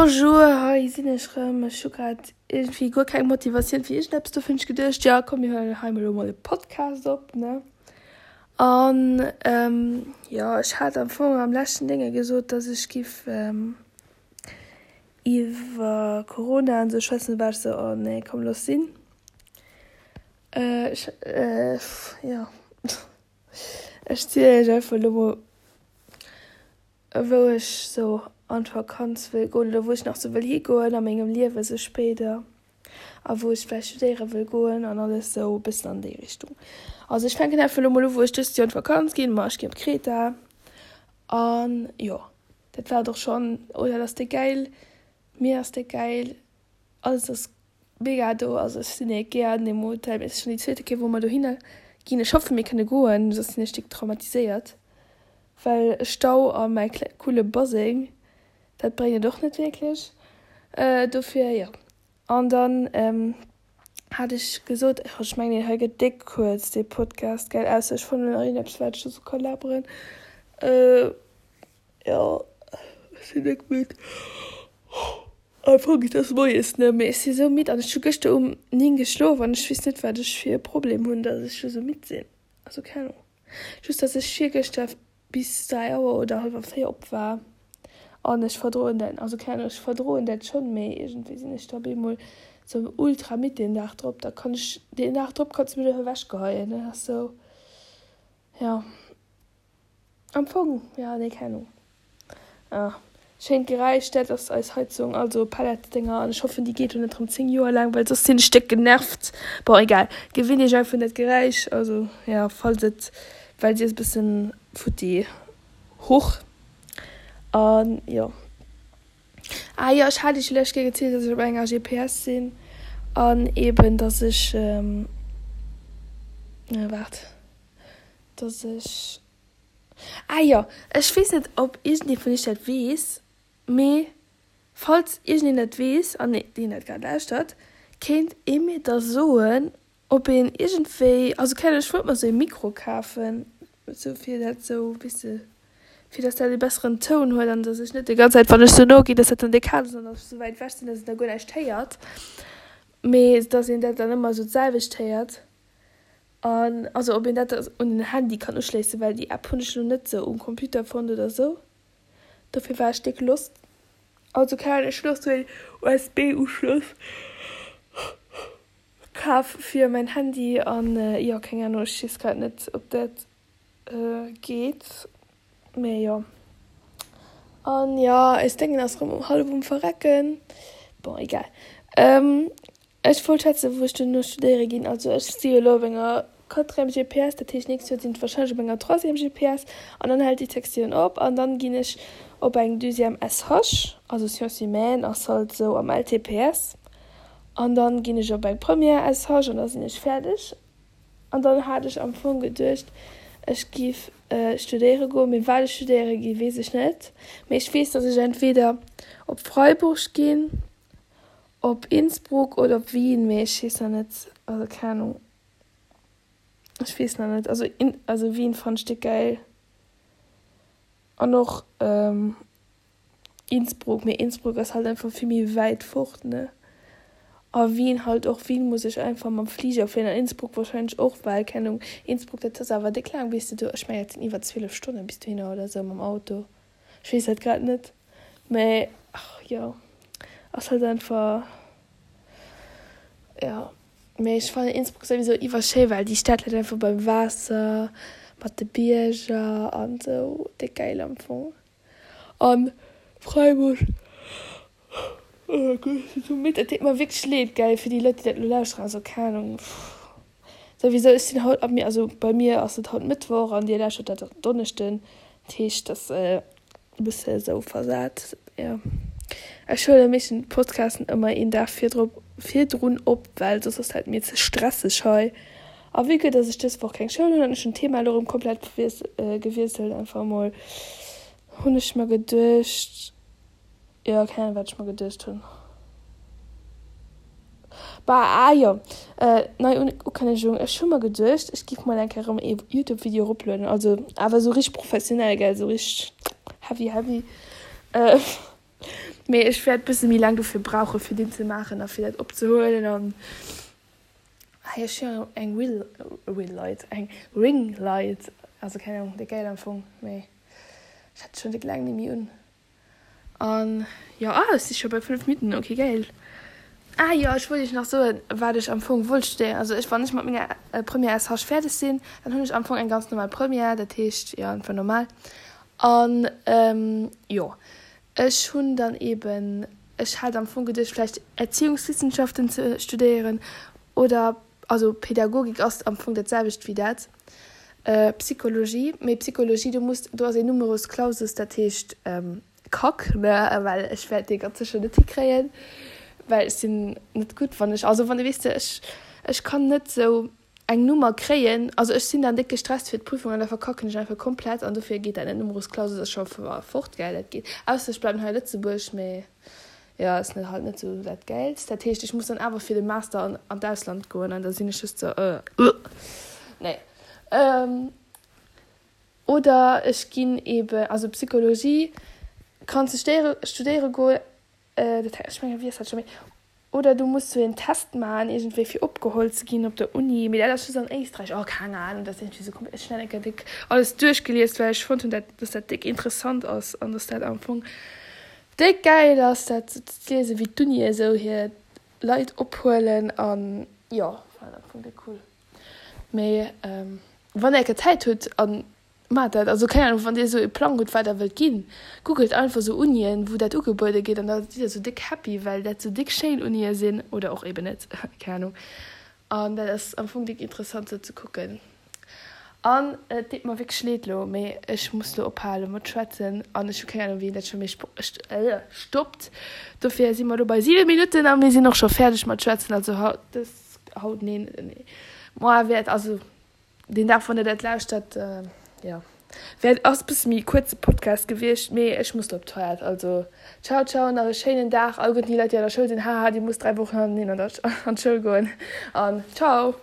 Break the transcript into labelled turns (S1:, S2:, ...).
S1: Bonjour, hei sinn ech rëm. Ech hu grad iergendwéi guer keng Motivatioun fir iergendeppes, dofir hunn ech geduecht, jo komm mir huelen hei mol elo mol e Podcast op, ne? An jo, ech hat am Fong am leschten Dénge gesot, dass ech giff iwwer Corona an esou schwätzen, du war ech esou, oh nee, komm looss sinn. Ech jo, ech zielen iech einfach elo mol. Wou ech sou an d'Vakanz wëll goen oder wou ech nach sou wëll higoen a mengem Liewe sou spéider a wou ech vläicht studéiere wëll goen an alles sou e bëssen an déi Richtung. Also ech fänken einfach elo mol u wou ech dëst Joer an d'Vakanz ginn. Ma ech ginn op Kreta an jo dat war et och schonn. Oh dat ass déck gäil, d'Mier ass déck gäil, alles ass Mega do, also ech sinn ee gär an deem Hotel, mee et ass schon déi zweete Kéier wou mer dohinner ginn. Ech hoffen mir kënne goen, soss sinn ech déck traumatiséiert, well Stau a mäi coole Baseng, dat bréngt et och net wierklech. Dofir jo. An dann hat ech gesot, ech mengen deen hei gëtt déck kuerz dee Podcast, gell, ausser ech fannen nach iergendeppes wat ech dozou ka laberen. Jo, ech sinn déck midd. Am Fong et ass moies ne, mee ech si sou midd an ech hu gëschter um 9 geschlof an ech weess net wat ech fir e Problem hunn, dass ech lo sou midd sinn. Also keng Ahnung. Just dass ech virgëschter bis 3 Auer oder hallwer 4 op war an ech verdroen dat, also keng Ahnung, ech verdroen dat schonn, mee iergendwéi sinn ech da op eemol sou ultra midd deen Dag drop. Da kann ech, deen Dag drop kanns de mech och ewechgeheien, dat ass sou, jo. Am Fong, jo, nee, keng Ahnung. Ah, schéint Geräisch, dat ass eis Heizung, also Pelletsdénger, an ech hoffen, déi geet lo net rëm 10 Joer laang, well soss sinn ech déck genervt. Bon, egal, gewinnt iech einfach un dat Geräisch, also jo, falls et, well si ass e bëssen futti. Huch, an jo. Ah jo, ech hat iech jo lescht Kéier gezielt, dass ech op enger GPS sinn an eben, dass ech, waart. Dass ech, ah jo, ech weess net ob iergendee vun iech dat weess, mee falls iergendeen dat weess an deen dat grad lauschtert, kéint ee mir da soen, ob een iergendwéi, also keng Ahnung, ech wollt mer esou ee Mikro kafen, esou fir dat esou, weess de, fir dass dat ee besseren Toun huet an dass ech net déi ganz Zäit, wann ech esou no ginn, dass dat dann déck haart ass an dass ech esou wäit ewech sinn, dass een da guer näischt héiert, mee dass een dat dann ëmmer esou d'selwecht héiert. An also ob een dat un den Handy kann uschléissen, well déi App hunn ech lo net sou um Computer fonnt oder sou. Dofir war ech déck lost. Also keng Ahnung, ech hunn och sou een USB Uschloss kaf fir mäin Handy an jo keng Ahnung, ech weess grad net ob dat geet, mee jo. An jo eis Déngen ass rëm hallef um verrecken, bon egal. Ech wollt schwätzen, wou ech duerno studéiere ginn. Also ech si jo elo op enger quatrième GPS, dat heescht nächst Joer sinn ech warscheinlech op enger troisième GPS an dann hält déi Sektioun op an dann ginn ech op eng deuxième SH, also Sciences humaines ass halt esou am LTPS, an dann ginn ech op eng première SH an da sinn ech fäerdeg. An dann hat ech am Fong geduecht, ech giff studéiere goen, mee wat ech studéiere gi weess ech net. Mee ech weess, datt ech entweder op Freiburg ginn, Op Innsbruck oder op Wien, mee ech weess nach net, also keng Ahnung, ech weess nach net, also in also Wien fannen ech déck gäil an och Innsbruck, mee Innsbruck ass halt einfach vill méi wäit fort ne a Wien halt och, Wien muss ech einfach mam Fliger fléien an Innsbruck wahrscheinlech och, well keng Ahnung, Innsbruck dat ass awer déck laang bis de do, ech mengen dat sinn iwwer 12 Stonnen bis dohinner oder sou mam Auto. Ech weess dat grad net, mä ach jo, ass halt einfach, jo. Mee ech fannen Innsbruck souwisou iwwerschéi, well déi Stad läit einfach beim Waasser, mat de Bierger an sou, déck gäil am Fong. An Freiburg, oh Gott, ech sinn sou midd, et deet mer wierklech leed, gell, fir déi Leit, déi dat elo lauschteren, also keng Ahnung, souwisou, ech sinn haut, also bei mir ass et haut Mëttwoch an dir lauschtert dat Donneschden, Dat heescht, dass e bësse esou versat, jo. Ech huele meeschtens d'Podcasten ëmmer een Dag virdrop, virdrun op, well soss ass dat mir ze stresseg hei. A vue que dass ech dës Woch keng Schoul hunn an ech hunn d'Thema elo erëm komplett gewiesselt einfach emol, hunn ech mer geduecht, Jo, keng Ahnung wat ech mer geduecht hunn. Bah, ah jo, nei Ukënnegung, ech hu mer geduecht ech giff mol eng Kéier erëm ee Youtube Video eroplueden, also awer esou richteg professionell gell, esou richteg heavy heavy. Mee ech wäert bësse méi laang dofir brauche fir deen ze maachen a fir dat opzehuelen an hei ech hunn eng Will Will Light eng Ring Light also keng Ahnung déi gäil am Fong mee ech hat schonn déck laang net méi un an jo ah ech si scho bei 5 Minutten ok gäil. Ah jo ech wollt iech nach soen wat ech am Fong wollt studéieren also ech wann ech mat menger Première SH fäerdeg sinn dann hunn ech am Fong eng ganz normal Première dat heescht jo einfach normal an jo Ech hunn dann eben, ech hat am Fong geduecht vläicht Erziehungswissenschaften ze studéieren oder, also Pädagogik ass am Fong dat selwecht wéi dat, Psychologie, mee Psychologie do muss, do ass een Numerus Clausus, dat heescht Kack, ne, well ech wäert dee ganz sécher net hikréien, well ech sinn net gutt wann ech, also wann, weess de, ech, ech kann net esou eng Nummer kréien, also ech sinn dann déck gestresst fir d'Prüfung an da verkacken ech einfach komplett an dofir geet dat net. Numerus Clausus ass scho fort, gell, dat geet, ausser ech bleiwen hei a Lëtzebuerg, mee jo ass net halt net sou dat gäilst. Dat heescht ech muss dann awer fir de Master an an d'Ausland goen an da sinn ech just sou euh nee. Oder ech ginn eben, also Psychologie kanns de stéiere studéiere goen, dat ech mengen wéi ass dat scho méi Oder du muss sou een Test maachen iergendwéi fir opgeholl ze ginn op der Uni, mee dat ass just an Éisträich. Oh keng Ahnung, dat ass iergendwéi sou komplett, ech hunn dat eng Kéier déck alles duerchgelies, well ech fonnt hunn dat dass dat déck interessant ass an dass dat am Fong déck gäil ass dat sou ze liesen, wéi d'Unie sou hir Leit ophuelen an jo, war am Fong déck cool. Mee wann der eng Kéier Zäit hutt an Maacht dat. Also keng Ahnung, wann dir esou e Plang hutt wat der wëllt ginn, googelt einfach esou Unien wou dat ugebuede gétt an da sidd der esou déck happy well dat esou déck schéin Unie sinn oder och eben net, keng Ahnung. An dat ass am Fong déck interessant sou ze kucken. An et deet mer wierklech leed lo, mee ech muss lo ophale mat schwätzen an ech hu keng Ahnung wéi een dat scho méi stoppt. Dofir si mer lo bei 7 Minutten a mir sinn och scho fäerdeg mat schwätzen. Also haut, dës, haut, neen, moar wäert, also Deen Dag wann der dat lauschtert, jo wäert ass bësse méi kuerze Podcast gewiescht, mee ech muss lo op d'Toilette. Also ciao ciao, nach e schéinen Dag alleguerten déi Leit déi an der Schoul sinn, haha dir musst 3 Wochen hannerteneen an der an d'Schoul goen an ciao.